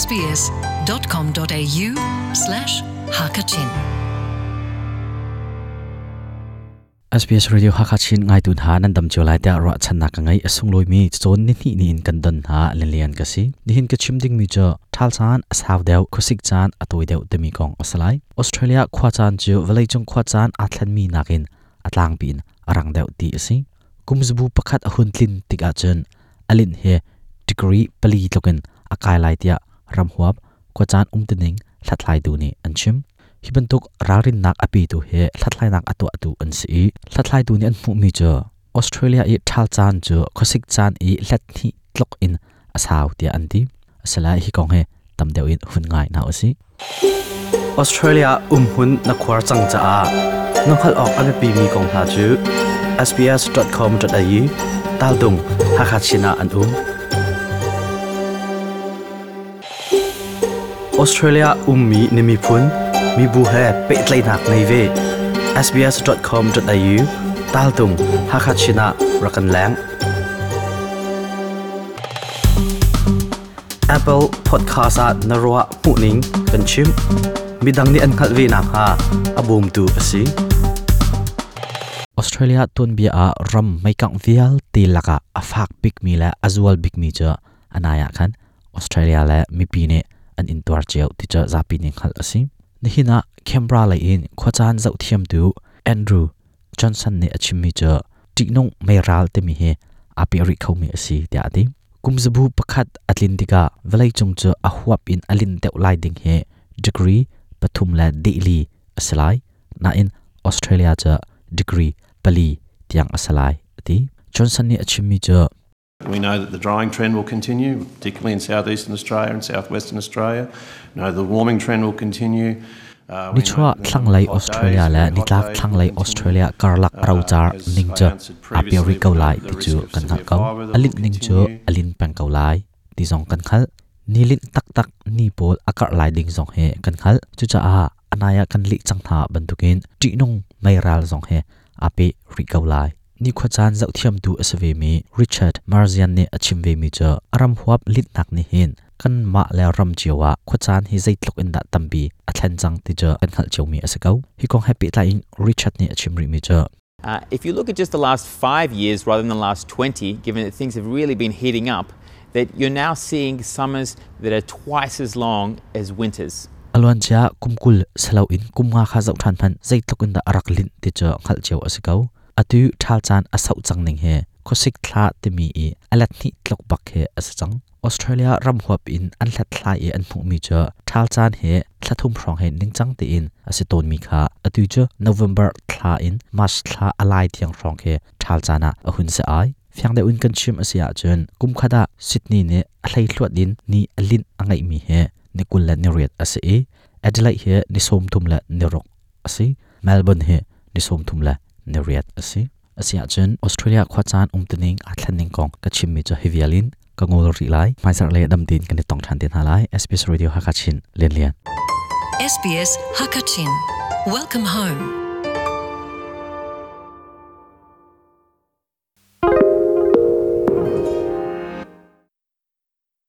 sbs.com.au slash hakachin. SBS Radio Hakachin ngaitu hna nan dam cio lai tiah ruahchannak ka ngei. A sunglawi mi cawn ni hnih ni in kan don hna lianlian ka si. Nihin ka chim ding mi cu ṭhal caan a sau deuh, khuasik caan a tawi deuh timi kong a si lai. Australia khua caan cu vawleicung khua caan aa thlenmi nakin a tlangpi in a rang deuh ti a si. Kum zabu pakhat a hun tlin tik ahcun a linh hi degree pali tlukin a kai lai tiah ramhuap khuacaan umtuning hlathlaitu nih an chim. Hi bantuk ralrinnak a petu hi hlathlainak a tuahtu an si i hlathlaitu nih an hmuhmi cu Australia i ṭhal caan cu khuasik caan i hlet hnih tluk in a sau tiah an ti. Asila hi kong hi tam deuh in hun ngai hna usih. Australia umhmun na khuar cang caah na hngalh awk a biapimi kong hna cu sbs.com.au taldung Hakha Chin ah an um. Australia ummi na miphun mibu he pehtlaihnak ngei ve. sbs.com.au taltung Hakha Chin ah rak kan leng. Apple Podcast ah na ruah hmuhning kan chim. Midang nih an hngalh ve nakhnga a bawmtu a si. Australia tuanbia ah ram meikangh vialte lakah a fak bikmi le a zual bikmi cu anai ah khan Australia le mipi nih an intuar cio ti cu zapi nih hngalh a si. Nihin ah Canberra lei in khuacaan zohthiamtu Andrew Johnson nih a chimmi cu ṭihnung meiral timi hi aa peh rih khomi a si tiah a ti. Kum zabu pakhat a tlin tikah vawleicung cu a huap in a linh deuh lai ding hi degree pathum le dehli a si lai. Nain Australia cu degree pali tiang a si lai a ti. Johnson nih a chimmi cu We know that the drying trend will continue, particularly in southeastern Australia and southwestern Australia. We know the warming trend will continue. Nichuah thlanglei Australia le nitlak thlanglei Australia karlak rocar ning cu aa peh rih ko lai ti cu kan hngalh ko. A linh ning cu a lin peng ko lai ti zong kan hngalh. Ni linh taktak ni pawl a karh lai ding zong hi kan hngalh. Cucaah a nai ah kan lih cang hna bantukin ṭihnung meiral zong hi aa peh rih ko lai. Nikhua caan zohthiamtu a si vemi Richard Marzian nih a chim vemi cu a ram huap litnak nih hin kanmah le ram cio ah khuacaan hi zeitluk in dah tampi a thlen cang ti cu kan hngalh ciomi a si ko. Hi kong he pehtlai in Richard nih a chim rihmi cu If you look at just the last 5 years rather than the last 20, given that things have really been heating up, that you're now seeing summers that are twice as long as winters. A luancia kum 20 siloin kum nga kha zoh ṭhan hmanh zeitluk in dah a rak linh ti cu hngalh cio a si ko. Atu ṭhal caan a sauh cang ning hi khuasik thla timi i a let hnih tluk bak hi a si cang. Australia ram huap in an hlathlai i an hmuhmi cu ṭhal caan hi thla thum hrawng hi ningcang tein a si tawnmi kha atu cu November thla in March thla a lai tiang hrawng khi ṭhal caan ah a hun si ai. Fiang deuh in kan chim a si ahcun kum khat ah Sydney nih a hleihluat in ni a linh a ngeihmi hi ni 28 a si i Adelaide hi ni 36 a si. Melbourne hi ni 38 a si. Asiahcun Australia khuacaan umtuning aa thlenning kong ka chimmi cu hi vial in ka ngol rih lai. Hmaizarh le dam tein kan i tong ṭhan te hna lai. SBS Radio Hakachin Lian Lian. SBS Hakachin. Welcome home.